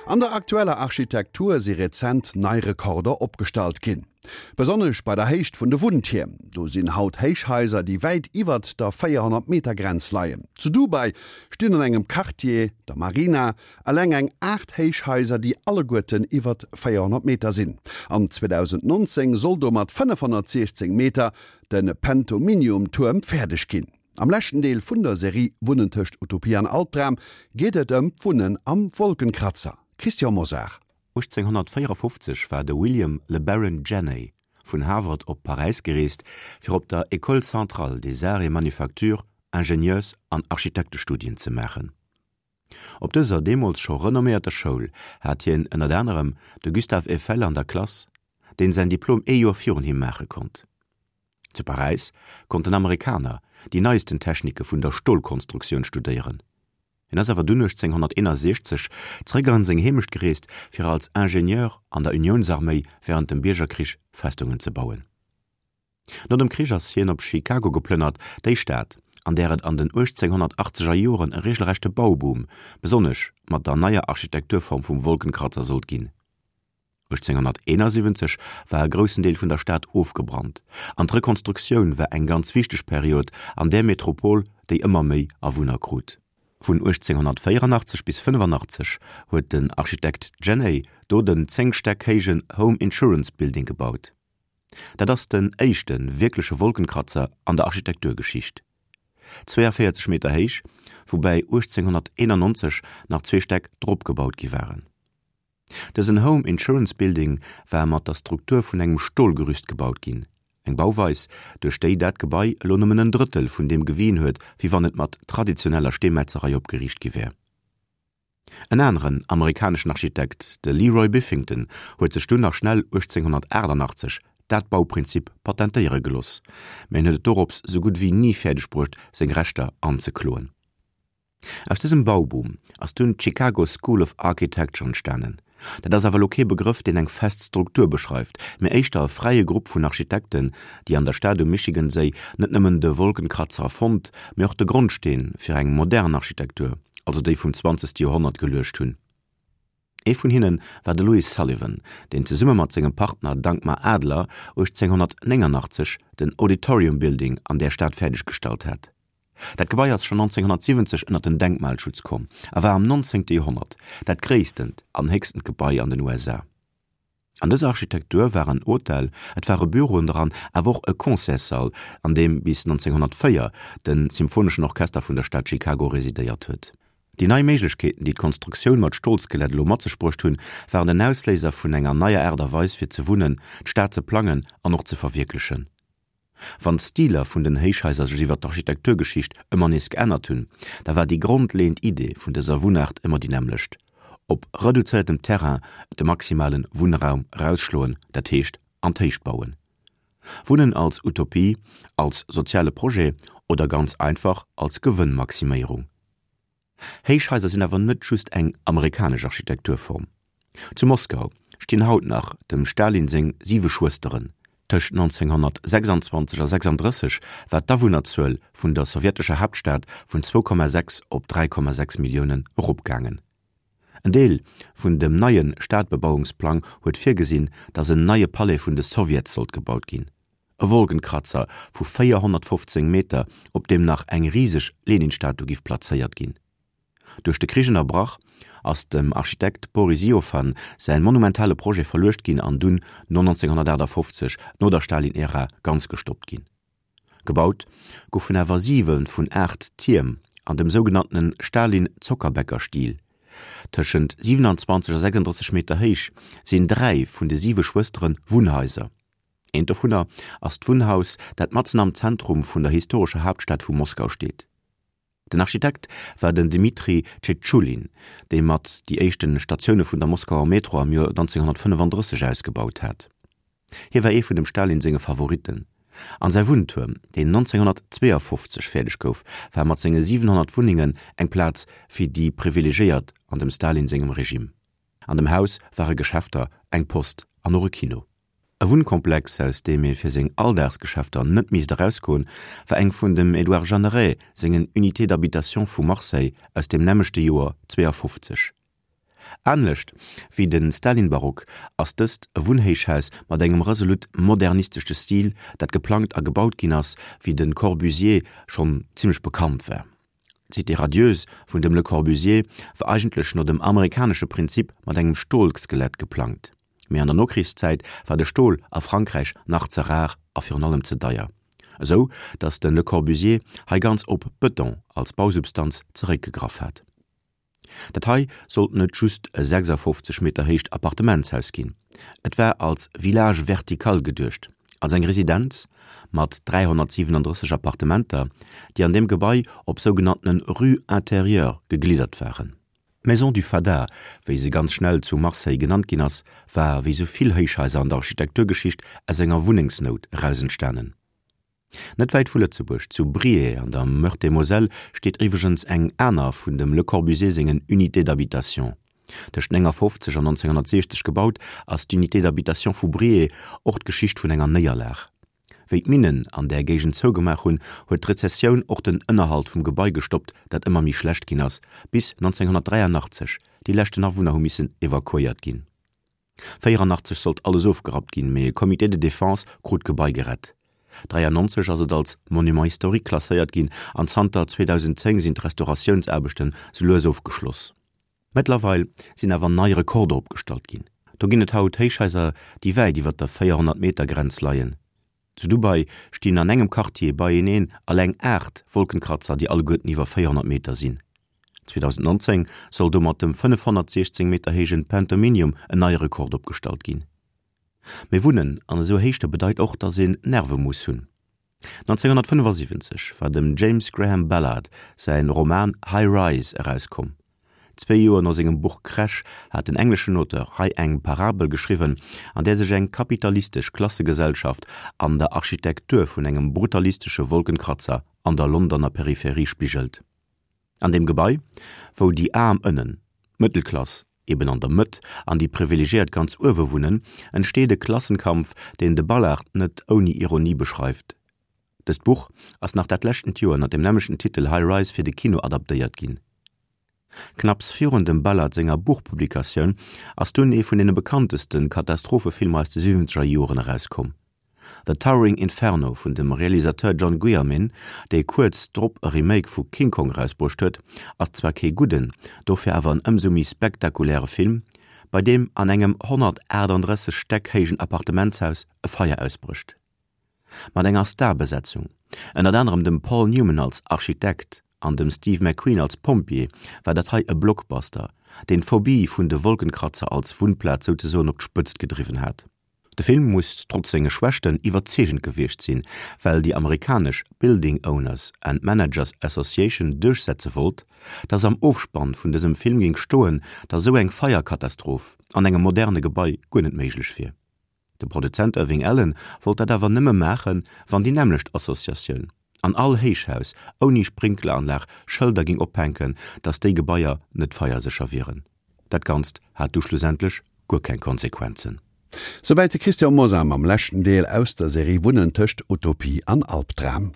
An der aktueller Architektur si rezent nei Rekorder opgestallt ginn. Besonnesch bei der Héicht vun de Wunntierm. Do sinn haut Héichhaiser, déi wäit iwwert der 400 Meter Grenz leien. Zu Dubai stinn an engem Quartier, der Marina, eleng eng 8 Héichhaiser, déi alleguerten iwwert 400 Meter sinn. An 2019 soll do mat 516 Meter de Pentominium-Tuerm fäerdeg ginn. Am leschten Deel vun der Serie Wunnen tëscht Utopie an Albdram geet et ëm d'Wunnen am Wolkenkratzer. Christian Mosar. 1854 war de William Le Baron Jenney vun Harvard op Paräis gereest, fir op der École centrale des arts et manufactures Ingenieurs an Architektestudien ze maachen. Op dëser deemools scho renomméierter Schoul hat hien ënnert anerem de Gustave Eiffel an der Klass, deen säin Diplom ee Joer virun him maache konnt. Zu Paräis konnt den Amerikaner déi neisten Technike vun der Stolkonstruktioun studéieren. Hien ass awer dunn 1861 zeréck an seng Heemecht gereest, fir als Ingenieur an der Uniounsarméi wärend dem Biergerkrich Festungen ze bauen. No dem Krich ass hien op Chicago geplënnert, déi Stad, an där et an den 1880er Joren e regelrechte Bauboom, besonnesch mat der neier Architekturform vum Wolkenkratzer, sollt ginn. 1871 war e groussen Deel vun der Stad ofgebrannt, an d'Rekonstruktioun war eng ganz wichteg Period an där Metropol, déi ëmmer méi Awunner krut. Vun 1884 bis 85 huet den Architekt Jenney do den 10 Stäck héijen Home Insurance Building gebaut. Dat ass den éischte wierkleche Wolkenkratzer an der Architekturgeschicht. 42 Meter héich, woubäi 1891 nach zwee Stäck drop gebaut gi waren. Dësen Home Insurance Building war mat der Struktur vun engem Stolgerüst gebaut ginn, eng Bauweis, duerch déi dat Gebai elo nëmmen en Drëttel vun deem gewien huet, wéi wann et mat traditioneller Steemetzerei opgeriicht gi wär. En aneren amerikaneschen Architekt, de Leroy Biffington, huet sech dunn nach schnell 1888 dat Bauprinzip patentéiere geloss, mä en huet et dorops sou gutt wéi ni fäerdeg bruecht, seng Rechter anzekloen. Aus dësem Bauboom ass dunn d'Chicago School of Architecture entstanen. Dat ass awer elo kee Begrëff, deen eng fest Struktur beschreift, mee éischter e fräie Grupp vun Architekten, déi an der Stad um Michigan-Séi net nëmmen de Wolkenkratzer erfonnt, mee och de Grondsteen fir eng modern Architektur, also déi vum zwanzegste Joerhonnert, geluecht hunn. Ee vun hinne war de Louis Sullivan, deen zesumme mat sengem Partner Dankmar Adler 1889 den Auditorium Building an där Stad fäerdeggestallt hat. Dat Gebai ass schonn 1970 ënner den Denkmalschutz komm a war am 19. Joerhonnert dat gréisstent an héchstent Gebai an den USA. An dëser Architektur war en Hotel, et ware Büroen dran, awer och e Concertssall, an deem bis 1904 de Symphoneschen Orchester vun der Stad Chicago residéiert huet. Déi nei Méiglechkeeten, déi d'Konstruktioun mat Stolskelett elo mat sech bruecht hunn, waren den Ausléiser vun enger neier Aart a Weis fir ze wunnen, d'Stad ze plangen an och ze verwierklechen. Wann d'Stiler vun den Héichhaiser sech iwwer d'Architekturgeschicht ëmmer nees geännert hunn, da war déi grondleeënd Idee vun dëser Wunnaart ëmmer déi nämmlecht, op reduzéiertem Terrain de maximale Wunnraum erausschloen, dat heescht an d'Héicht bauen. Wunnen als Utopie, als soziale Projet oder ganz einfach als Gewënnmaximéierung. Héichhaiser sinn awer net just eng amerikanesch Architekturform. Zu Moskau stinn haut nach dem Stalin seng siwe Schwësteren. Tëscht 1926 a 36 war d'Awunnerzuel vun der sowjetescher Haaptstad vun 2,6 op 3,6 Milliounen eropgaangen. En Deel vun dem neie Stadbebauungsplang huet virgesinn, datt en neie Palais vun de Sowjets sollt gebaut ginn. E Wolkenkratzer vu 415 Meter, op deem nach eng riseg Lenin-Statu giff plazéiert ginn. Duerch de Krich ënnerbrach, ass dem Architekt Boris Iofan säin monumentale Projet verluecht ginn an dunn no 1958, no der Stalin-Ära, ganz gestoppt ginn. Gebaut goufen awer siwe vun 8 Tierm an dem sougenanntene Stalin-Zockerbäcker-Stil. Tëschent 27 a 36 Meter héich sinn dräi vun de siwe Schwëstere Wunnhaiser. Eent dovunner ass d'Wunnhaus, dat matzen am Zentrum vun der historescher Haaptstad vu Moskau steet. Den Architekt war den Dmitri Tschetschulin, dee mat déi éischte Statioune vun der Moskauer Metro am Joer 1935 ausgebaut hat. Hie war ee vun dem Stalin senge Favoritten. An säi Wunntuerm, deen 1952 fäerdeg gouf, war mat senge 700 Wunnengen eng Plaz fir déi Privilegéiert an dem Stalin sengem Regime. An dem Haus ware Geschäfter, eng Post an och e Kino. E Wunnkomplex, aus deem ee fir seng Alldagsgeschäfter net misst erausgoen, war eng vun dem Édouard Jeanneret sengen Unités d'habitation vu Marseille aus dem nämmlechte Joer 52. Anescht wéi de Stalin-Barock ass dëst e Wunnhéichhaus mat engem resolut modernistesche Stil, dat geplangt a gebaut ginn ass, wéi de Corbusier schonn zimmlech bekannt war. D'Cité radieuse vun dem Le Corbusier war eigentlech no dem amerikanesche Prinzip mat engem Stolskelett geplangt. Mee an der Nokrichszäit war de Stol a Frankräich nach ze rar a virun allem ze deier, esou datt de Le Corbusier hei ganz op Bëton als Bausubstanz zeréckgegraff hat. Dat hei sollt net just e 56 Meter héicht Appartementshaus ginn, et war als Village vertical geduecht, als eng Residenz mat 337 Appartementer, déi an deem Gebai op sougenanntene Rues intérieures gegliddert waren. D'Maison du Fada, wéi se ganz schnell zu Marseille genannt ginn ass, war wéi sou vill Héichhaiser an der Architekturgeschicht aus enger Wunnengsnout eraus entstanen. Net wäit vu Lëtzebuerg, zu Briey an der Meurthe-et-Moselle, steet iwwregens eng aner vun dem Le Corbusier sengen Unités d'habitation. Tëscht 59 an 1960 gebaut, ass d'Unité d'habitation vu Briey och d'Geschicht vun enger Néierlag. Wéi d'Minnen an där Géigend zougemaach hunn, huet d'Rezessioun och den Ënnerhalt vum Gebai gestoppt, dat ëmmer méi schlecht ginn ass, bis 1983 déi leschten Awunner hu missen evakuéiert ginn. 84 sollt alles ofgerappt ginn, mee e Comité de défense krut d'Gebai gerett. 93 ass et als Monument historique klasséiert ginn an zanter 2010 sinn d'Restauratiounsaarbechten sou lues ofgeschloss. Mëttlerweil sinn awer nei Rekorder opgestallt ginn. Do ginn et haut Héichhaiser, déi wäit iwwer der 400 Meter Grenz leien. Zu Dubai stinn an engem Quartier beieneen alleng 8 Wolkenkratzer, déi alleguerten iwwer 400 Meter sinn. 2019 soll do mat dem 516 Meter héijen Pentominium en neie Rekord opgestallt ginn. Mee Wunnen an esou Héichte bedeit och, dass een Nerve muss hunn. 1975 war dem James Graham Ballard säi Roman High Rise erauskomm. Zwéi Joer no sengem Buch Crash hat den engleschen Auteur hei eng Parabel geschriwwen, an där sech eng kapitalistesch Klassegesellschaft an der Architektur vun engem brutalistesche Wolkenkratzer an der Londoner Peripherie spigelt. An deem Gebai, wou déi Aarm ënnen, d'Mëttelklass eben an der Mëtt an déi Privilegiéiert ganz uewe wunnen, entsteet e Klassenkampf, deen de Ballard net ouni Ironie beschreift. Dëst Buch ass nach dat leschtent Joer ënner dem nämmlechten Titel High Rise fir de Kino adaptéiert ginn. Knapps virun dem Ballard senger Buchpublikatioun ass dunn ee vun deene bekannteste Katastrophefilmer aus de siwwenzeger Joren erauskomm. The Towering Inferno vun dem Realisateur John Guillermin, dee kuerz drop e Remake vu King Kong erausbruecht huet, ass zwar kee gudden, dofir awer en ëmsou méi spektakuläre Film, bei deem an engem 138 Stäck héijen Appartementshaus e Feier ausbrécht. Mat enger Starbesetzung, ënnert anerem dem Paul Newman als Architekt an dem Steve McQueen als Pompjee, war dat hei e Blockbuster, deen d'Phobie vun de Wolkenkratzer als Wunnplaz souzesoen op d'Spëtzt gedriwwen hat. De Film muss trotz senge Schwächten iwwerzeegend gewiescht sinn, well déi amerikanesch Building Owners and Managers Association duerchsetze wollt, dass am Ofspann vun dësem Film géing stoen, dass esou eng Feierkatastroph an engem moderne Gebai guer net méiglech wier. De Produzent Irving Allen wollt dat awer nëmme maachen, wann déi nämmlecht Associatioun an all Héichhaus ouni Sprinkleranlag Schëlder géing ophänken, dass déi Gebaier net feiersécher wieren. Dat Ganzt hat du schlussendlech guer keng Konsequenzen. Souwäit de Christian Mosar mam leschten Deel aus der Serie Wunnen tëscht Utopie an Albdram.